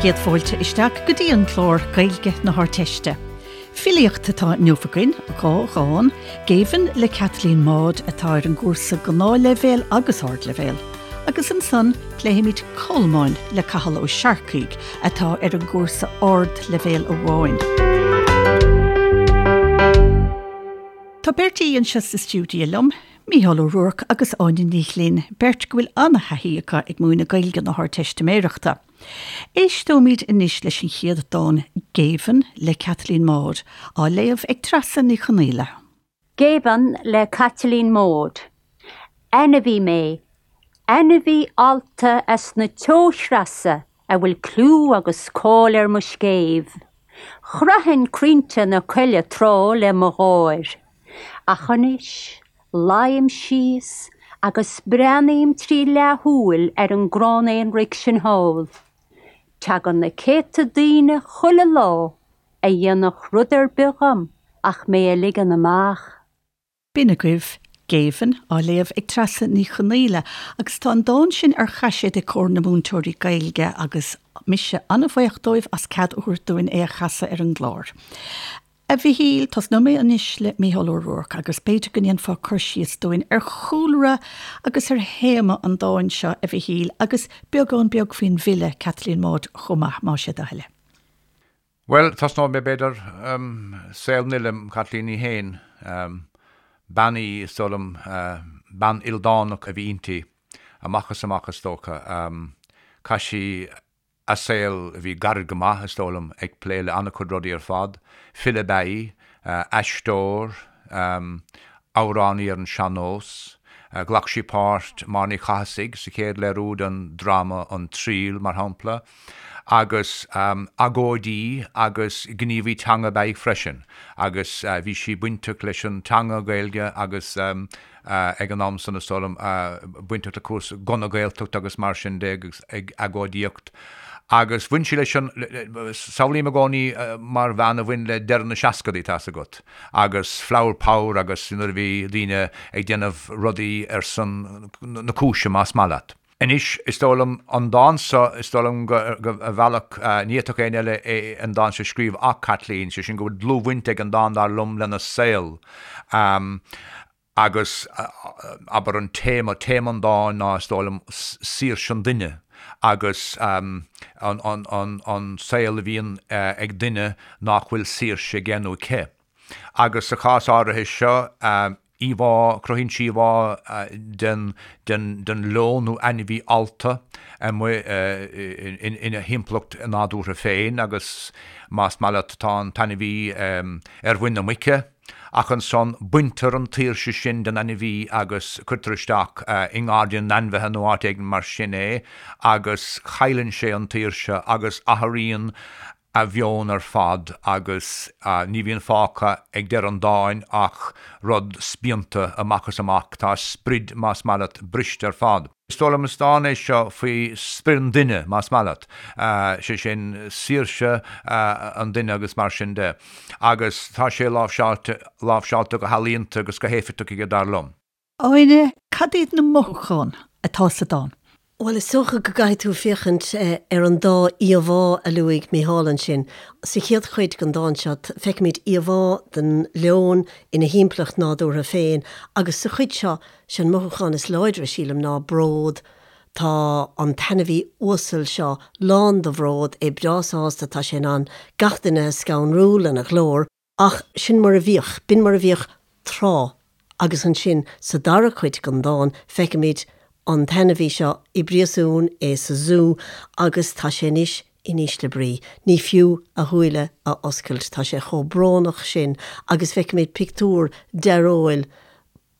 Céad fáilte isteach go dtí an clár Gaeilge na hArdteiste. Filíocht atá inniu againn, 2 dhán, Géibheann le Caitlín Maude atá ar an gcúrsa Gnáthleibhéal agus Ardleibhéal, agus ansan pléifimid Colmáin le Cathal Ó Searcaigh atá ar an gcúrsa Ardleibhéal amháin. Tá beirt aoi anseo sa stiúideo liom, Mícheál Ó Ruairc agus Áine Ní Ghlinn, beirt go bhfuil an-thaithí acu ag múineadh Gaeilge na hArdteistiméireachta. Éisteoimid anois leis an chéad dán, Géibheann le Caitlín Maude, á léamh ag Treasa Ní Chonaola. Géibheann le Caitlín Maude. Ainmhí mé, ainmhí allta as na teochreasa a bhfuil clú agus cáil ar mo scéimh. Chroithfinn crainnte na coille tráth le mo gháir. Ach anois, luím síos agus breathnaím trí leathshúil ar an gcrann aonraic sin thall. Tagann na céadta daoine chuile lá a dhéanfadh rud ar bith dhom ach mé a ligean amach. B'in agaibh Géibheann, á léamh ag Treasa Ní Chonaola, agus tá an dán sin ar chaiséad ag Comhar na Múinteoirí Gaeilge agus mise an-bhuíoch dóibh as cead a thabhairt dúinn é a chasadh ar an gclár. A Mhichíl, tosnóidh mé anois le Mícheál Ó Ruairc agus b'fhéidir go ndéanfá cur síos dúinn ar chúlra agus ar théama an dáin seo, a Mhichíl, agus beagán beag faoin bhfile, Caitlín Maude, chomh maith, más é do thoil é. Bhuel, tosnóidh mé, b'fhéidir, saol an fhile, Caitlín í féin. Bean í, is dóigh liom, bean ildánach a bhí inti, amach is amach, is dócha. Chaith sí a saol, a bhí gairid go maith, is dóigh liom, ag plé le an-chuid rudaí ar fad. File ab ea í, aisteoir, amhránaí ar an sean-nós. Ghlac sí páirt Máire Ní Chathasaigh sa chéad léiriú den dráma An Triail, mar shampla. Agus agóidí agus gníomhaí teanga ab ea í freisin. Agus bhí sí bainteach leis an teanga Gaeilge agus ag an am san, is dóigh liom, bainteach le cúrsaí na Gaeltachta agus mar sin de agus ag agóidíocht. Agus bhain sí leis an, samhlaím i gcónaí mar bhean a bhain le deireadh na seascadaí, tá's agat. agus flower power agus nuair a bhí daoine ag déanamh rudaí ar son na cúise, más maith leat. Anois, is dóigh liom, an dán seo, is dóigh liom go, ar bhealach, ní fhéadfadh éinne eile é, an dán seo a scríobh ach Caitlín, sé sin go bhfuil dlúthbhaint ag an dán, dar liom, lena saol. Agus, abair, an téama, téama an dáin ná, is dóigh liom, saoirse an duine agus an saol a bhíonn ag duine nach bhfuil saoirse aige nó aici. Agus sa chás áirithe seo, íomhá, cruthaíonn sí íomhá den, den, den leon nó ainmhí allta amuigh ina thimpeallacht nádúrtha féin agus más maith leat tá an t-ainmhí ar mhuin na muice, Ach ansan baintear an tsaoirse sin den ainmhí agus cuirtear isteach i ngairdín na n-ainmhithe nó áit éigin mar sin é agus cailleann sé an tsaoirse agus athraíonn a mheon ar fad agus ní bhíonn fágtha ag deireadh an dáin ach rud spíonta amach is amach. Tá a sprid, más maith leat, briste ar fad. Is dóigh liom is dán é seo faoi sprid an duine, más maith leat, sé sin saoirse an duine agus mar sin de. Agus tá sé láimhseáilte, láimhseáilte go healaíonta agus go héifeachtach aige, dar liom. Áine, cad iad na mothúcháin atá sa dán? Bhuel, is dócha go gcaithfidh tú féachaint ar an dá íomhá a luaigh Mícheál ansin. Sa chéad chuid den dán seo, feicimid íomhá den leon ina thimpeallacht nádúrtha féin agus sa chuid seo, sé an mothúchán is láidre, sílim, ná bród. Tá an t-ainmhí uasal seo lán de bhród, é breá sásta, tá sé in ann gach duine a scanrú lena ghlór. Ach sin mar a bhíodh, b'in mar a bhíodh tráth. Agus ansin sa dara cuid den dán feicimid an t-ainmhí seo i bpríosún, é sa zú, agus tá sé anois in ísle brí. Ní fiú a shúile a oscailt, tá sé chomh brónach sin agus feicimid pictiúr dearóil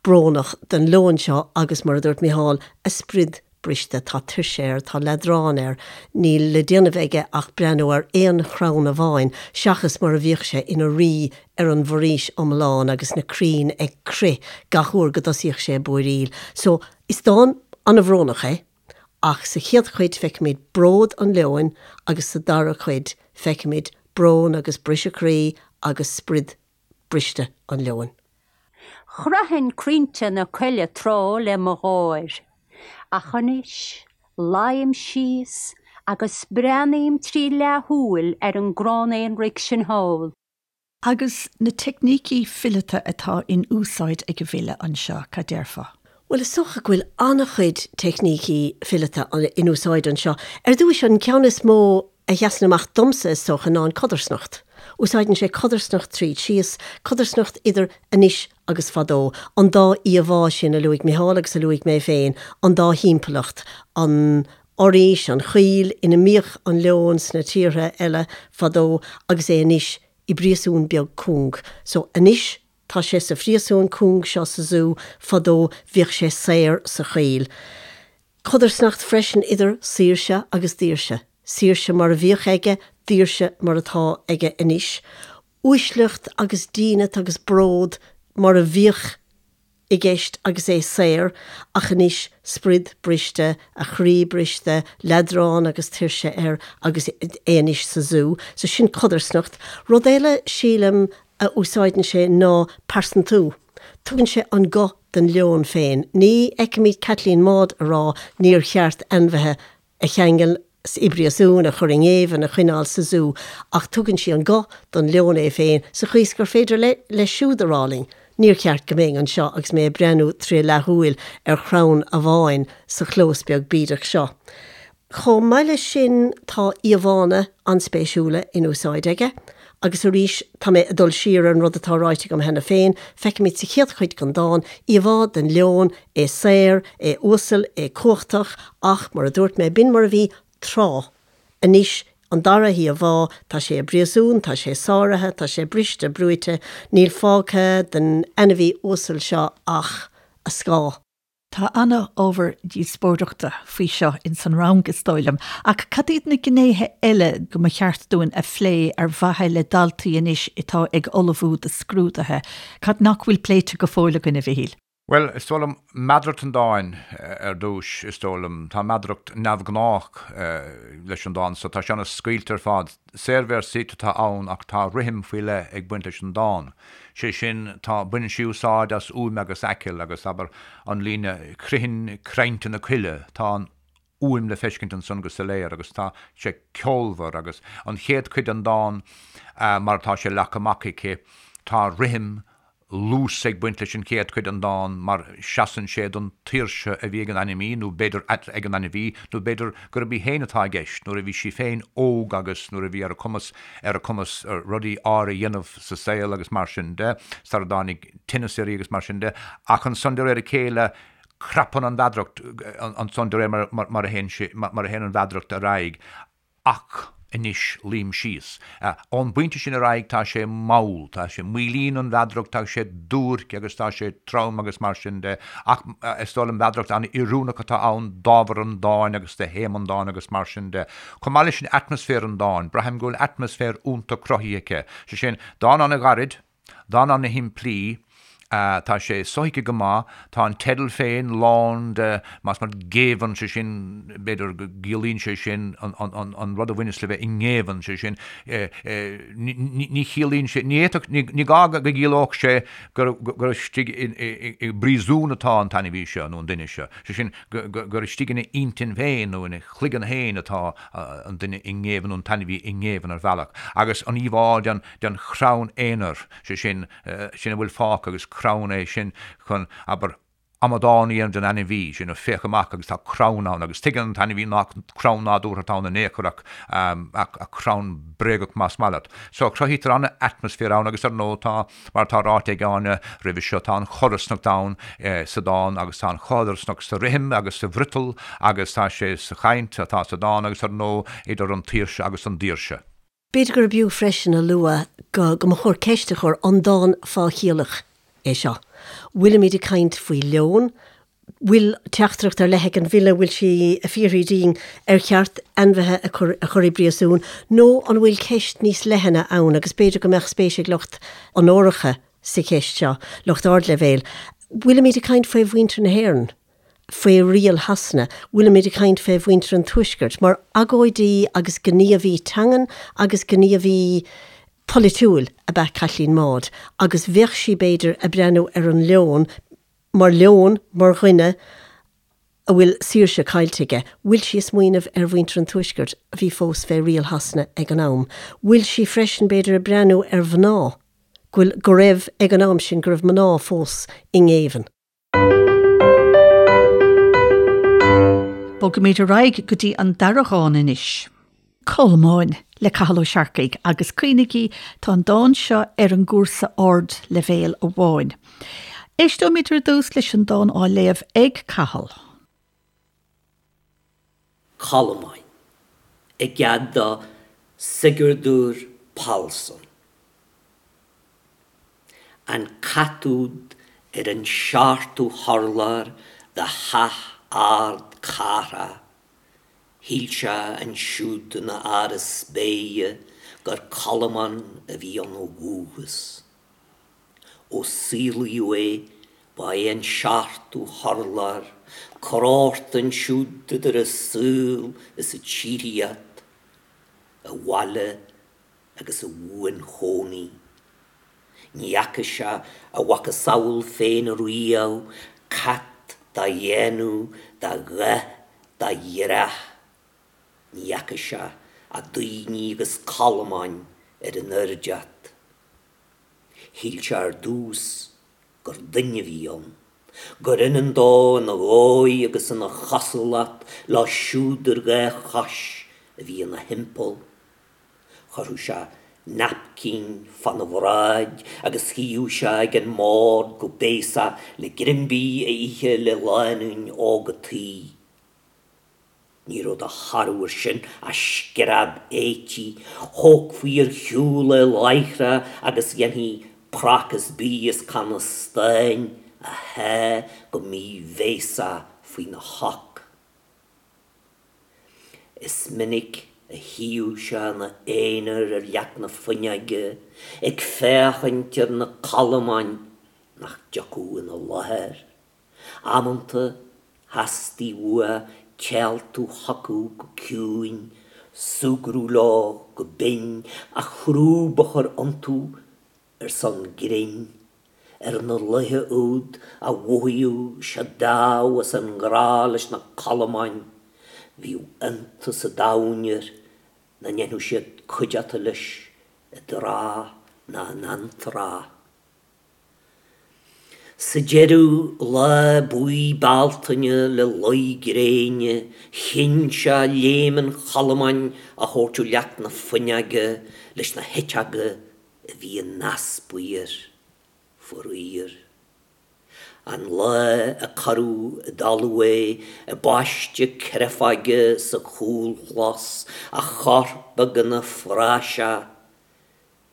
brónach den leon seo agus, mar a dúirt Mícheál, a sprid briste. Tá tuirse air, tá leadrán air, níl le déanamh aige ach breathnú ar aon chrann amháin, seachas mar a bhíodh sé ina rí ar an bhforaois iomlán agus na crainn ag crith gach uair go dtosaíodh sé ag búiríl. So, is dán an-bhrónach é, ach sa chéad chuid feicimid bród an leoin agus sa dara cuid feicimid brón agus briseadh croí agus sprid briste an leoin. Chroithfinn crainnte na coille tráth le mo gháir, ach anois luím síos Agus breathnaím trí leathshúil ar an gcrann aonraic sin thall. Agus na teicnící fileata atá in úsáid ag an bhfile anseo, cad déarfá? Bhuel, is dócha go bhfuil an-chuid teicnící fileata in úsáid anseo. Ar dtúis, an ceann is mó a sheasann amach domsa, is dócha, ná an codarsnacht. Úsáideann sé codarsnacht tríd síos, codarsnacht idir anois agus fadó, an dá íomhá sin a luaigh Micheál agus a luaigh mé féin, an dá thimpeallacht, an fhoraois, an choill ina mbíodh an leon sna tíortha eile fadó agus é anois i bpríosún beag cúng. So, anois tá sé sa phríosún cúng seo sa zú, fadó bhíodh sé saor sa choill. Codarsnacht freisin idir saoirse agus daoirse. Saoirse mar a bhíodh aige, daoirse mar atá aige anois. Uaisleacht agus dínit agus bród mar a bhíodh i gceist agus é saor, ach anois sprid briste, a chroí briste, leadrán agus tuirse air agus é anois sa zú. So sin codarsnacht. Rud eile, sílim, a úsáideann sé ná pearsantú. Tugann sé an guth don leon féin. Ní fheicimid Caitlín Maude a rá níor cheart ainmhithe a cheangal i bpríosún, a chur i ngéibheann, a choinneáil sa zú, ach tugann sí an guth don leon é féin sa chaoi is gur féidir leis siúd a rá linn, níor cheart go mbeinn anseo agus mé ag breathnú tré leathshúil ar chrann amháin sa chlós beag bídeach seo. Chomh maith leis sin tá íomhánna an-spéisiúla in úsáid aige. Agus arís, tá mé ag dul siar ar an rud atá ráite agam cheana féin, feicimid sa chéad chuid den dán íomhá den leon, é saor, é uasal, é cumhachtach, ach, mar a dúirt mé, b'in mar a bhí tráth. Anois, an dara híomhá, tá sé i bpríosún, tá sé sáraithe, tá sé briste, brúite, níl fágtha den ainmhí uasal seo ach a scáth. Tá ana-ábhar díospóireachta faoi seo ins an rang, is dóigh liom. Ach cad iad na gnéithe eile go mba cheart dúinn a phlé ar mhaithe le daltaí anois atá ag ullmhú do scrúduithe? Cad nach bhfuil pléite go fóill againn, a Mhichíl? Bhuel, is dóigh liom, meadaracht an dáin ar dtús, is dóigh liom. Tá meadaracht neamhghnách leis an dán so. Tá sé ana-scaoilte ar fad. Saorvéarsaíocht atá ann ach tá rithim faoi leith ag baint leis an dán. Sé sin, tá, baineann sí úsáid as uaim agus aiceall agus, abair, an líne 'Critheann crainnte na coille', tá an fhuaim le feiscint ansan go soiléir agus tá sé ceolmhar agus an chéad chuid den dán mar atá sé leagtha amach aici, tá rithim luas ag baint leis an chéad chuid den dán mar seasann sé don tsaoirse a bhí ag an ainmhí, nó b'fhéidir ag an ainmhí, nó b'fhéidir gurb í féin atá i gceist, nuair a bhí sí féin óg agus nuair a bhí ar a cumas ar a cumas rudaí áirithe a dhéanamh sa saol agus mar sin de, sara dtáinig tinneas uirthi agus mar sin de. Ach ansan de réir a chéile crapann an mheadaracht ansan de réir mar a théann sé mar a théann an mheadaracht ar aghaidh. Ach anois luím síos. Ón bpointe sin ar aghaidh tá sé mall, tá sé, maolaíonn an mheadaracht, tá sé duairc agus tá sé trom agus mar sin de. Ach is dóigh liom meadaracht an-oiriúnach atá ann d'ábhar an dáin agus do théama an dáin agus mar sin de. Chomh maith leis sin atmaisféar an dáin, braithim go bhfuil atmaisféar iontach cruthaithe aici. Sé sin, dán an-ghairid, Dán ana-shimplí, tá sé sothuigthe go maith, tá an teideal féin lán de, más maith leat, géibheann, sé sin, b'fhéidir go gciallaíonn sé sin an rud a bhaineas le bheith i ngéibheann, sé sin, ní chiallaíonn sé, ní fhéadfadh, ní gá go gciallódh sé gur istigh i bpríosún atá an t-ainmhí seo nó an duine seo, sé sin, gur istigh ina intinn féin nó ina chloigeann féin atá an duine i ngéibheann nó an t-ainmhí i ngéibheann ar bhealach. Agus an íomhá den. den chrann aonair, sé sin, sin a bhfuil fágtha agus crann é sin chun, abair, amadán a dhéanamh den ainmhí, sin, féach amach agus tá crann ann agus tuigeann an t-ainmhí nach crann nádúrtha atá ann in aon chor ach, ach crann bréagach más maith leat. So, cruthaítear an-atmaisféar ann agus ar ndóigh tá, mar atá ráite ag Áine roimhe seo, tá an chodarsnacht ann sa dán agus tá an chodarsnacht sa rithim agus sa bhfriotal agus tá sé sa chaint atá sa dán agus ar ndóigh idir an tsaoirse agus an daoirse. B'fhéidir gurb fhiú freisin a lua go go mba chóir ceist a chur, an dán fáthchiallach é seo? Bhfuilimid ag caint faoi leon? Bhfuil teachtaireacht ar leith ag an bhfile, bhfuil sí ag fiafraí dínn ar cheart ainmhithe a chur a chur i bpríosún nó an bhfuil ceist níos leithne ann agus b'fhéidir go mbeadh spéis ag lucht onóracha sa cheist seo, lucht ardleibhéil. Bhfuilimid ag caint faoi mhuintir na hÉireann? faoi riail Shasana, bhfuilimid ag caint fé mhuintir an Tuaiscirt, mar agóidí agus gníomhaí teangan agus gníomhaí polaitiúil ab ea Caitlín Maude, agus bheadh sí, b'fhéidir, ag breathnú ar an leon mar leon, mar dhuine. A bhfuil saoirse caillte aige? Bhfuil sí ag smaoineamh ar mhuintir an Tuaiscirt a bhí fós fé riail Shasana ag an am? Bhfuil sí freisin, b'fhéidir, ag breathnú ar mhná, go bhfuil, go raibh, ag an am sin, go raibh mná fós i ngéibheann? Bogaimid ar aghaidh go dtí an dara dhán anois. Colmáin le Cathal Ó Searcaigh agus cuimhnigí tá an dán seo ar an gcúrsa ardleibhéil amháin. Éisteoimid ar dtús leis an dán á léamh ag Cathal. Colmáin, i gcead do Sigurdur Pálsson. An cat úd ar an seachtú hurlár de theach ard cathrach, Shíl sé ansiúd ina áras spéire gur colmán a bhí ann ó dhúchas. Ó saolaíodh é, ba é an seachtú hurlár, corrghort ansiúd idir an saol is an tsíoraíocht, a bhaile agus a bhuanchónaí. Ní fhaca sé a mhacasamhail féin riamh, cat dá dhéanamh, dá dhath, dá dhreach. Ní fhaca sé ach daoine agus colmáin ar an oirdeacht. Shíl sé ar dtús gur duine a bhí ann, gur ionann dó ina dhóigh agus ina chosúlacht leo siúd ar dhá chois a bhí ina thimpeall. Chuirfeadh sé naipcín fána bhráid agus shuíodh sé ag an mbord go béasach le greim bídh a ithe le lánúin óg a' tí. Ní raibh de thoradh air sin ach scread éití, thógfaí ar shiúl é láithreach agus dhéanfaí prácás bídh is canna stáin a shá go míbhéasach faoina shoc. Is minic a shuíodh sé ina aonar ar leac na fuinneoige ag féachaint ar na colmáin nach dtiocfadh ina láthair. Amanta theastaigh uaidh téaltú chucu go ciúin, súgradh leo go binn, ach crúb a chur iontu ar son grinn, ar na laetha úd a mhothaíodh sé dámh as an ngrá leis na colmáin, bhíodh iontas an domhain air nach ndéanfadh siad cuideachta leis i dtráth ná in antráth. Sa deireadh, lá buí Bealtaine le luí gréine, chinn sé léim an cholmáin a thabhairt ó leac na fuinneoige leis na heiteoga a bhí in easpa air, faraor. An lá a cuireadh i dtalamh é i bpaiste créafóige sa chúlchlós, a chorp beag ina phraiseach,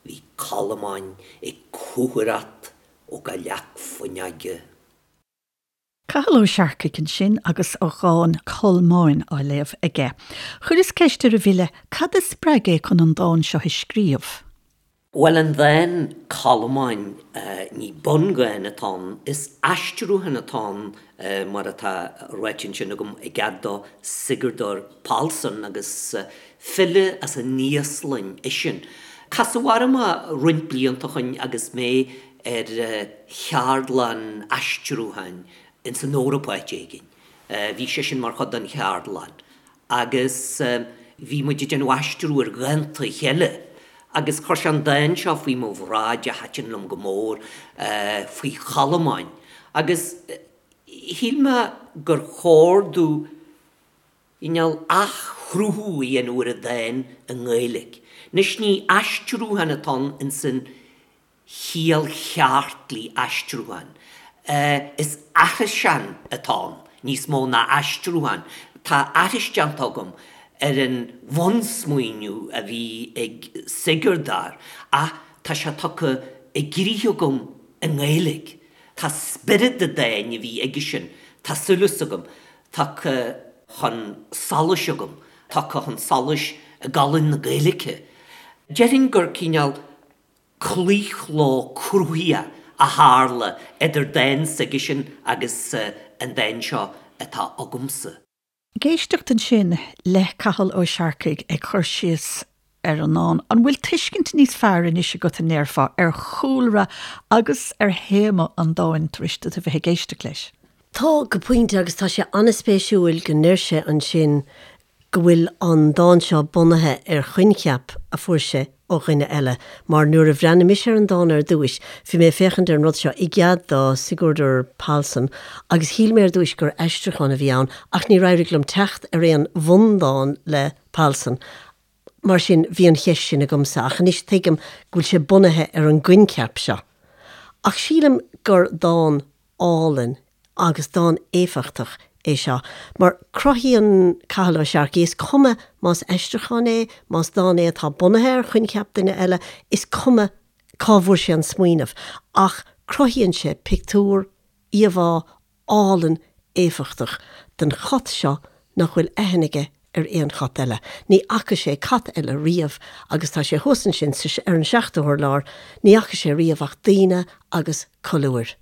bhí colmáin ag cúthaireacht ó gach leac fuinneoige. Cathal Ó Searcaigh ansin agus a dhán 'Colmáin' á léamh aige. Chuireas ceist ar an bhfile cad a spreag é chun an dán seo a scríobh. Bhuel, an dán 'Colmáin', ní bundhán atá ann, is aistriúchán atá ann mar atá ráite ansin agam i gcead do Sigurdur Pálsson agus file as an Íoslainn eisean. Casadh orm é roinnt blianta ó shoin agus mé ar cheardlann aistriúcháin ins an Eoraip áit éigin. Bhí seisean mar chuid den cheardlann agus bhí muid ag déanamh aistriú ar dhánta a chéile agus chuir sé an dán seo faoi mo bhráid a thaitin liom go mór, faoi cholmáin agus shíl mé gur chóir domh cineál athchruthú a dhéanamh ar an dán i nGaeilge. Anois ní aistriúchán atá ann ins an chiall cheart le aistriúchán. Is aithriseán atá ann níos mó ná aistriúchán. Tá aithris déanta agam ar an bhunsmaoineamh a bhí ag Sigurdur ach tá sé tugtha i gcrích agam i nGaeilge. Tá spiorad an dáin a bhí aigesean, tá súil agam, tagtha chun solais agam, tagtha chun solais i gcolainn na Gaeilge. Déarfainn gur cineál claochló cruthaitheach a tharla idir dán s'aigesean agus an dán seo atá agamsa. Ag éisteacht ansin le Cathal Ó Searcaigh ag cur síos ar an ndán, an bhfuil tuiscint níos fearr anois agat, an ndéarfá, ar chúlra agus ar théama an dáin tar éis duit a bheith ag éisteacht leis? Tá, go pointe, agus tá sé an-spéisiúil go ndeir sé ansin go bhfuil an dán seo bunaithe ar choincheap a fuair sé ó dhuine eile, mar nuair a bhreathnaigh mise ar an dán ar dtúis, bhí mé ag féachaint ar an rud seo i gcead do Sigurdur Pálsson agus shíl mé ar dtúis gur aistriúchán a bhí ann ach níor éirigh liom teacht ar aon bhundán le Pálsson. Mar sin, bhí an cheist sin agamsa, ach anois tuigim go bhfuil sé bunaithe ar an gcoincheap seo. Ach sílim gur dán álainn agus dán éifeachtach é seo, mar cruthaíonn Cathal Ó Searcaigh, is cuma más aistriúchán é, más dán é atá bunaithe ar choincheap duine eile, is cuma cá bhfuair sé an smaoineamh, ach cruthaíonn sé pictiúr, íomhá álainn éifeachtach den chat seo nach bhfuil aithne aige ar aon chat eile. Ní fhaca sé cat eile riamh agus tá sé thuas ansin sa, ar an seachtú hurlár, ní fhaca sé riamh ach daoine agus colúir.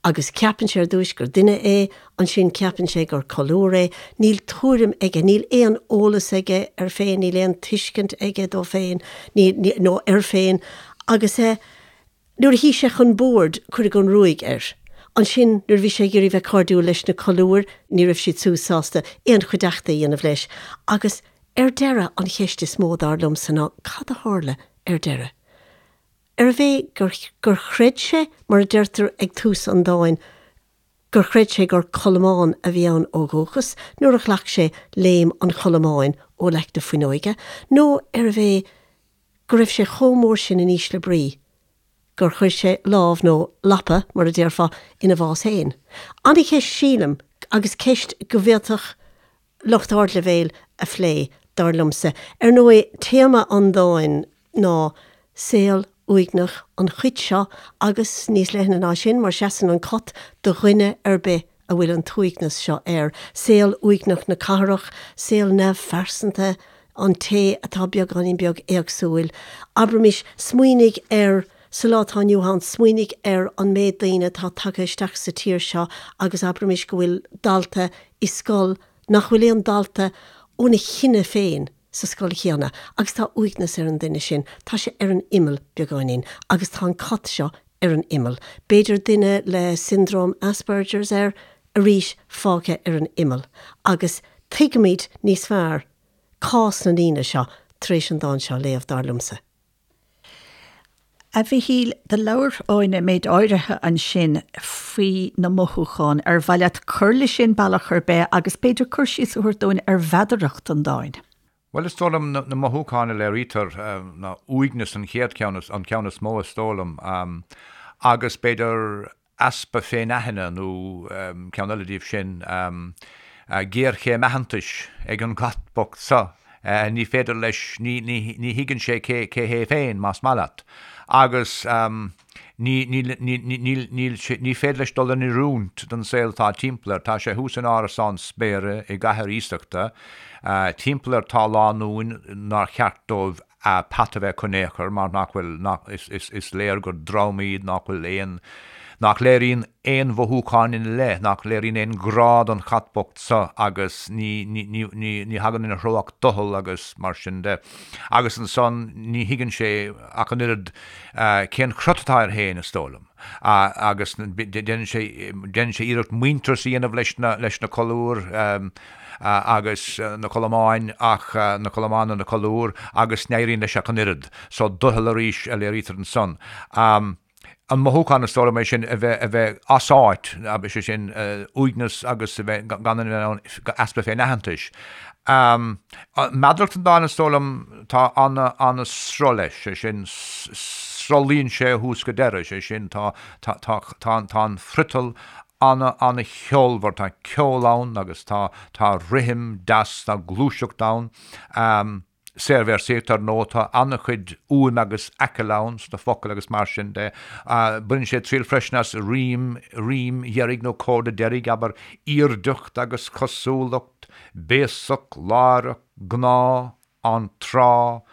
Agus ceapann sé ar dtúis gur duine é, ansin ceapann sé gur colúr é, níl tuairim aige, níl aon eolas aige air féin, níl aon tuiscint aige dó féin, ní, ní, nó air féin agus eh, Nuair a shuigh sé chun boird, cuireadh an ruaig air. Ansin, nuair a bhí sé ag iarraidh bheith cairdiúil leis na colúir, ní raibh siad siúd sásta aon chuideachta a dhéanamh leis. Agus, ar deireadh, an cheist is mó, dar liomsa, ná cad a tharla ar deireadh? Arbh é gur, gur chreid sé, mar a deirtear ag tús an dáin, gur chreid sé gur colmán a bhí ann ó dhúchas nuair a ghlac sé léim an cholmáin ó leac na fuinneoige, nó arbh é go raibh sé chomh mór sin in ísle brí gur chuir sé lámh, nó lapa, mar a déarfá, ina bhás féin. An-cheist sílim, agus ceist go bhféadfadh lucht ardleibhéil a phlé, dar liomsa. Ar ndóigh, téama an dáin ná saol uaigneach an chait seo agus níos leithne ná sin, mar seasann an cat do dhuine ar bith a bhfuil an t-uaigneas seo air, saol uaigneach na cathrach, saol neamhphearsanta an té atá beagáinín beag éagsúil. Abraimis, smaoinigh ar, sa lá atá inniu ann, smaoinigh ar an méid daoine atá tagtha isteach sa tír seo agus abraimis go bhfuil dalta i scoil nach bhfuil aon dalta óna chine féin sa scoil chéanna agus tá uaigneas ar an duine sin, tá sé ar an imeall beagáinín agus tá an cat seo ar an imeall. B'fhéidir duine le siondróm Asperger's air, arís fágtha ar an imeall. Agus tuigimid níos fearr cás na ndaoine seo tar éis an dán seo a léamh, dar liomsa. A Mhichíl, do labhair Áine méid áirithe ansin faoi na mothúcháin. Ar mhaith leat cur leis sin bealach ar bith agus b'fhéidir cur síos a thabhairt dúinn ar mheadaracht an dáin? Bhuel, is dóigh liom na mothúcháin a léirítear ná uaigneas an chéad cheann, an ceann is mó is dóigh liom, agus b'fhéidir easpa féinaithne nó ceann eile díobh sin, géarchéim aitheantais ag an gcat bocht seo. Ní féidir leis, ní, ní, ní thuigeann sé cé, cé hé féin, más maith leat. Agus ní, ní, ní, ní, níl, níl sé, ní féidir leis dul in oiriúint don saol atá timpeall air. Tá sé thuas in árasán spéire i gcathair iasachta. Timpeall air tá lánúin nár cheart dóibh peata a bheith acu in aon chor mar nach bhfuil, nach, is, is, is léir gur dream iad nach bhfuil aon, nach léiríonn aon mhothúcháin ina leith, nach léiríonn aon ghrá don chat bocht seo agus ní, ní, ní, ní, ní thagann ina threo ach doicheall agus mar sin de. Agus ansan ní thuigeann sé ach an oiread cén crot atá air féin, is dóigh liom. Agus déanann sé, déanann sé iarracht muintearas a dhéanamh leis na, leis na colúir, agus na colmáin ach na colmáin nó na colúir agus ní éiríonn leis ach an oiread. So doicheall arís a léirítear ansan. An mothúchán is dóigh liom é sin a bheith a bheith as áit, sé sin uaigneas agus a bheith gan a bheith in ann easpa féin-aitheantais. Meadaracht an dáin is dóigh liom tá ana ana-sruth leis, sé sin sruthlaíonn sé ó thús go deireadh, sé sin tá tá tá tá an friotal ana, ana-cheolmhar, tá ceol ann agus tá, tá rithim deas, tá gluaiseacht ann. Saorvéarsaíocht, ar ndóigh, tá ana-chuid uaim agus aicill ann sna focail agus mar sin de. Baineann sé triail freisin as rím, rím dheiridh nó comhardadh deiridh, abair, aoirdeacht agus cosúlacht, béasach, láithreach, gnáth, an tráth,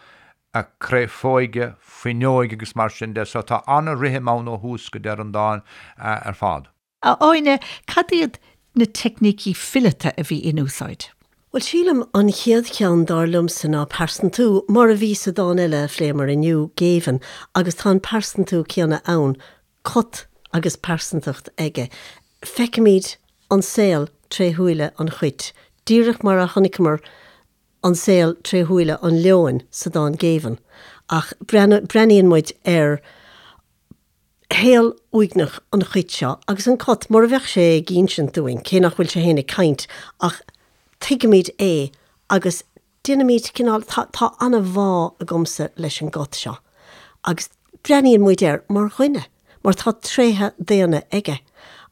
a créafóige, fuinneoige agus mar sin de, so tá ana-rithim ann ó thús go deireadh an dáin ar fad. A Áine, cad iad na teicnící fileata a bhí in úsáid? Bhuel, sílim, an chéad cheann dar liomsa ná pearsantú, mar a bhí sa dán eile a phléamar inniu, Géibheann, agus tá an pearsantú céanna ann, cat agus pearsantacht aige. Feicimid. an saol tré shúile an chait, díreach mar a chonaiceamar an saol tré shúile an leoin sa dán Géibheann, ach breathnaíonn muid ar shaol uaigneach an chait seo agus an cat, mar a bheadh sé ag insint dúinn, cé nach bhfuil sé féin ag caint, ach tuigimid é agus déanaimid cineál, tá, tá an-bhá agamsa leis an gcat seo agus breathnaíonn muid air mar dhuine, mar tá tréithe daonna aige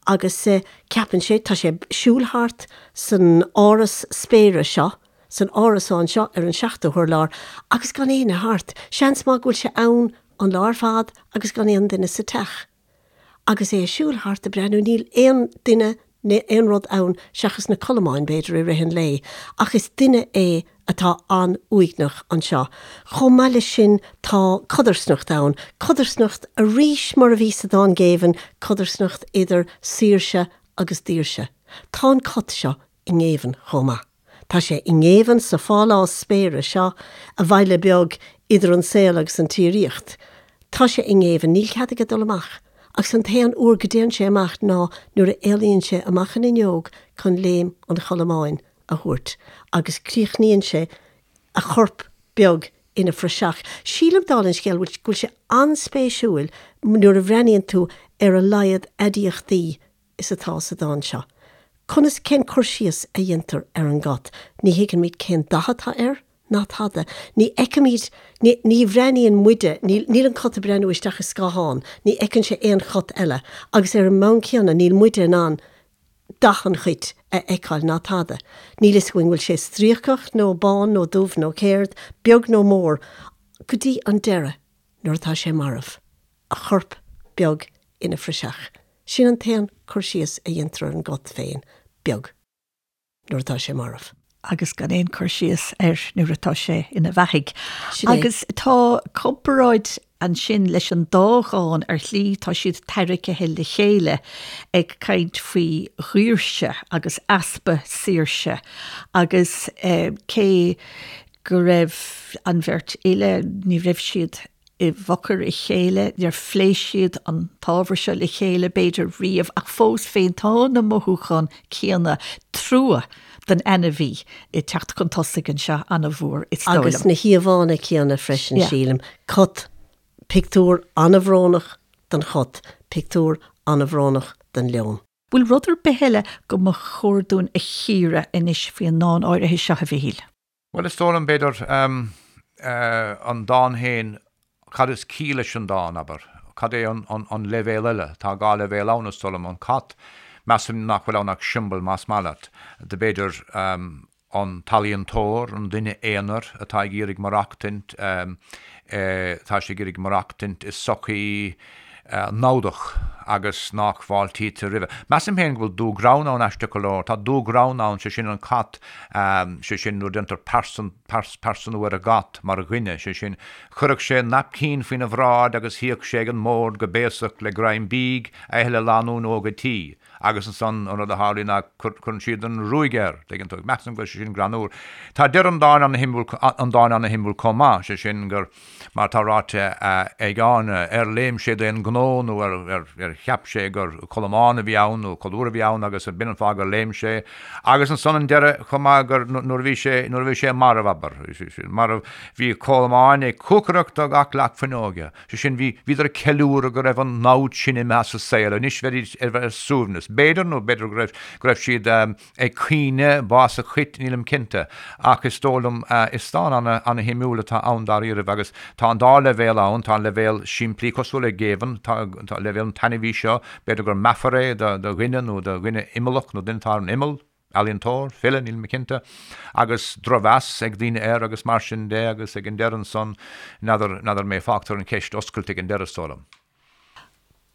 agus ceapann sé, tá sé ag siúl thart san áras spéire seo, san árasán seo ar an seachtú hurlár agus gan éinne thart. Seans maith go bhfuil sé ann an lá ar fad agus gan aon duine sa teach. Agus é ag siúl thart ag breathnú, níl aon duine ná aon rud ann seachas na colamáin, b'fhéidir, i rith an lae. Ach is duine é atá an-uaigneach anseo. Chomh maith leis sin tá codarsnacht ann, codarsnacht arís mar a bhí sa dán Géibheann, codarsnacht idir saoirse agus daoirse. Tá an cat seo i ngéibheann chomh maith. Tá sé i ngéibheann sa phálás spéire seo, a bhaile beag idir an saol agus an tsíoraíocht. Tá sé i ngéibheann, níl cead aige dul amach, agus an t-aon uair go dtéann sé amach ná nuair a éalaíonn sé amach an fhuinneog chun léim an cholamáin a thabhairt, agus críochnaíonn sé a chorp beag ina phraiseach. Sílim, dála an scéil, go bhfuil sé an-spéisiúil nuair a bhreathnaíonn tú ar a laghad aidiachtaí is atá sa dán seo. Conas, cén cur síos a dhéantar ar an gcat? Ní thuigimid cén dath atá air, ná tada. Ní fheicimid, ní, ní bhreathnaíonn muide, níl, níl an cat ag breathnú isteach i scáthán, ní fheiceann sé aon chat eile, agus ar an mbonn céanna níl muide in ann dath an chait a fheiceáil ná tada. Níl fhios againn bhfuil sé stríocach nó bán nó dubh nó céard, beag nó mór, go dtí an deireadh nuair atá sé marbh. a chorp beag ina phraiseach. Sin an t-aon cur síos a dhéantar ar an gcat féin, beag, nuair atá sé marbh. agus gan aon cur síos air nuair atá sé ina bheathaidh. Sin é. Agus tá comparáid ansin leis an dá dhán ar shlí, tá siad tarraicthe le chéile ag caint faoi dhaoirse agus easpa saoirse agus cé go raibh an bheirt fhile, ní raibh siad i bhfochair a chéile, níor phléigh siad an t-ábhar seo le chéile, b'fhéidir, riamh, ach fós féin tá na mothúcháin céanna, trua don ainmhí, ag teacht chun tosaigh anseo an-mhór, is dóigh liom. Agus na híomhánna céanna freisin, sílim. Cat, pictiúr an-bhrónach den chat, pictiúr an-bhrónach den leon. Bhfuil rud ar bith eile go mba chóir dúinn a chíoradh anois faoi an ndán áirithe seo, a Mhichíl? Bhuel, is dóigh liom, b'fhéidir, an dán féin, cad is ciall leis an dán, abair? Cad é an leibhéal eile? Tá dhá leibhéal ann, is dóigh liom. An cat, measaim nach bhfuil ann ach siombail, más maith leat, de b'fhéidir, an t-ealaíontóir, an duine aonair atá ag iarraidh maireachtaint, tá sé ag iarraidh maireachtaint i sochaí namhdach agus nach bhfáiltítear roimhe. Measaim féin go bhfuil dúghreann ann, aisteach go leor. Tá dúghreann ann, sé sin an cat, sé sin nuair a déantar pearsanú ar an gcat mar dhuine, sé sin, chuirfeadh sé naipcín faoina bhráid agus shuíodh sé ag an mbord go béasach le greim bídh a ithe le lánúin óg an tí. Agus ansan an rud a tharlaíonn ná cuireann siad an ruaig air, tuigeann tú. Measaim go bhfuil sé sin greannmhar. Tá deireadh an dáin ana-shuimiúil, an dáin ana-shuimiúil chomh maith, sé sin gur, mar atá ráite ag Áine, ar léim sé d'aon ghnó nó ar cheap sé gur colamán a bhí ann nó colúr a bhí ann agus b'in an fáth gur léim sé. Agus ansan an deireadh chomh maith gur nuair a bhí sé, nuair a bhí sé marbh, abair, marbh, bhí colamáin ag cuacaireacht do gach leac fuinneoige. Sé sin, bhí, bhíodar ag ceiliúradh go raibh an namhaid sin imithe as an saol, anois bheidís ar, ar suaimhneas. B'fhéidir, nó b'fhéidir go raibh, go raibh siad ag caoineadh bás an chait, nílim cinnte. Ach is dóigh liom, is dán ana, ana-shuimiúil atá ann dáiríribh agus tá an dá leibhéal ann, tá an leibhéal simplí, cosúil le Géibheann, tá, tá leibhéal an t-ainmhí seo, b'fhéidir gur meafar é do, do dhuine nó do dhuine imeallach nó duine atá ar an imeall. ealaíontóir, file, níl mé cinnte, agus drochmheas ag daoine air agus mar sin de agus ag an deireadh ansan, n'fheadar, n'fheadar mé, fágtar an cheist oscailte ag an deireadh, is dóigh liom.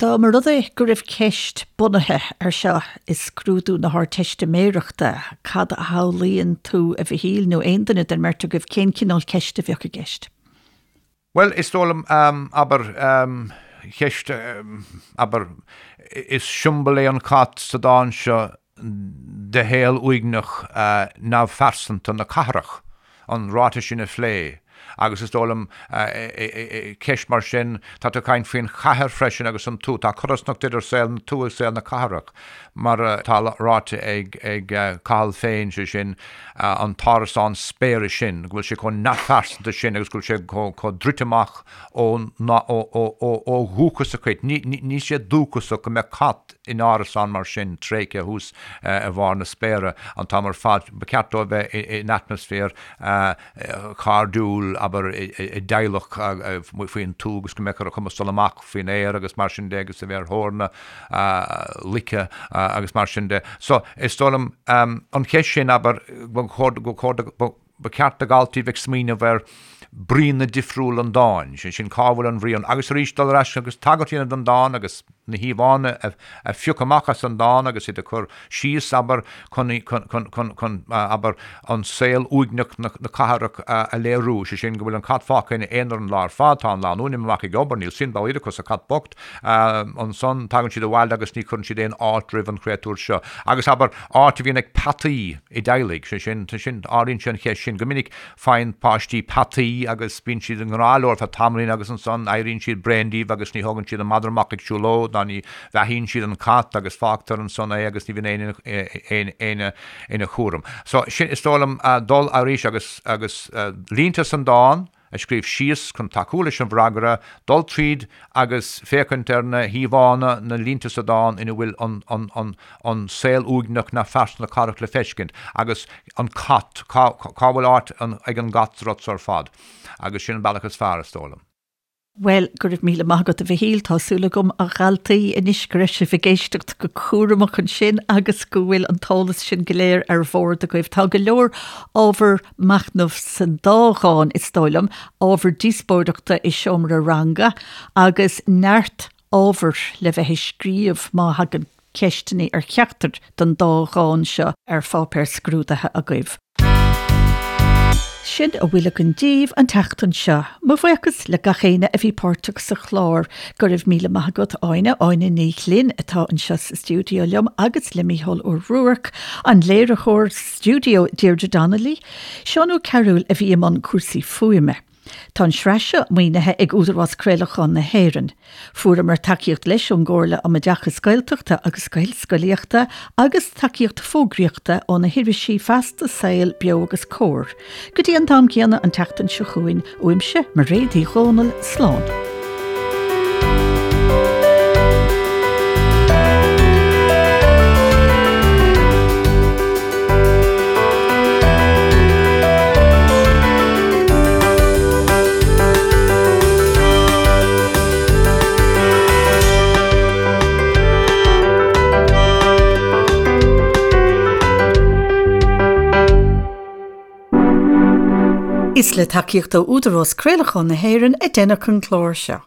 Dá mba rud é go raibh ceist bunaithe ar seo i scrúdú na hArdteistiméireachta, cad a shamhlaíonn tú, a Mhichíl, nó aon duine den mbeirt agaibh, cén cineál ceiste a bheadh i gceist? Bhuel, is dóigh liom, abair, ceist, abair, is siombail é an cat sa dán seo de shaol uaigneach neamhphearsanta na cathrach, an ráiteas sin a phlé. Agus is dóigh liom, ceist mar sin, tá tú ag caint faoin chathair freisin agus an tuath, tá codarsnacht idir saol na tuaithe agus saol na cathrach, mar atá ráite ag Cathal féin, sé sin, an t-árasán spéire sin, go bhfuil sé chomh neamhphearsanta sin agus go bhfuil sé chomh druidte amach ó dhúchas a chait. Níl sé dúchasach go mbeadh cat in árasán mar sin tréigthe thuas i bharr na spéire an t-am ar fad. Ba cheart dó a bheith in atmaisféar cairdiúil, abair, i dteaghlach faoin tuath agus go mbeadh ar a chumas dul amach faoin aer agus mar sin de agus a bheith ar thóir na loice agus mar sin de. So, is dóigh liom, an cheist sin, abair, ba chóir, ba cheart do dhaltaí bheith ag smaoineamh ar bríonna difriúla an dáin, sé sin, cá bhfuil an bhrí ann, agus arís dul ar ais agus tagairt a dhéanamh don dán agus na híomhánna a phiocadh amach as an dán agus iad a chur síos, abair, chun, chun, chun, chun, abair, an saol uaigneach na cathrach a léiriú, sé sin, go bhfuil an cat fágtha ina aonar an lá ar fad, tá an lánúin imithe amach ag obair, níl suim dá laghad acu sa chat bocht, ansan tagann siad abhaile agus ní chuireann siad aon fháilte roimh an chréatúr seo. Agus, abair, áit a bhíonn ag peataí i dteaghlaigh, sé sin, sin, ardaíonn sé an cheist sin. Go minic faigheann páistí peataí agus bíonn siad i ngrá leo ar feadh tamaillín agus ansan éiríonn siad bréan díobh agus ní thógann siad an madra amach ag siúlóid ná ní bheathaíonn siad an cat agus fágtar ansan é agus ní bhíonn éinne éinne ina chúram. So, sin, is dóigh liom, dul arís agus, agus línte san dán, a scríobh síos chun tacú leis an bhfreagra, dul tríd agus féachaint ar na híomhánna, na línte sa dán ina bhfuil an saol uaigneach neamhphearsanta na cathrach le feiscint, agus an cat, cá bhfuil áit ag an gcat sa rud so ar fad? Agus sin an bealach is fearr, is dóigh liom. Bhuel, go raibh míle maith agat a Mhichíl, tá súil agam a dhaltaí anois go raibh sibh ag éisteacht go cúramach ansin agus go bhfuil an t-eolas sin go léir ar bhord agaibh. Tá go leor ábhar machnaimh san dá dhán, is dóigh liom, ábhar díospóireachta i seomra ranga agus neart ábhair le bheith ag scríobh má thagann ceisteanna ar cheachtar den dá dhán seo ar pháipéar scrúdaithe agaibh. Sin a bhfuil againn daoibh an tseachtain seo. Mo bhuíochas le gach éinne a bhí páirteach sa chlár. Go raibh míle maith agat Áine, Áine Ní Ghlinn atá anseo sa stiúideo liom agus le Mícheál Ó Ruairc, an léiritheoir stiúideo Deirdre Donnelly, Seán Ó Cearúil a bhí i mbun cúrsaí fuaime. Tá an tsraith seo maoinithe ag Údarás Craolacháin na hÉireann. Fuaireamar tacaíocht leis ón gComhairle um Oideachas Gaeltachta agus Gaelscolaíochta agus tacaíocht fógraíochta ó na hirisí Feasta, Saol, Beo agus Comhar. Go dtí an t-am céanna an tseachtain seo chugainn, uaimse, Mairéad Uí Dhomhnaill, slán. Is le tacaíocht ó Údarás Craolacháin na hÉireann a deineadh an clár seo.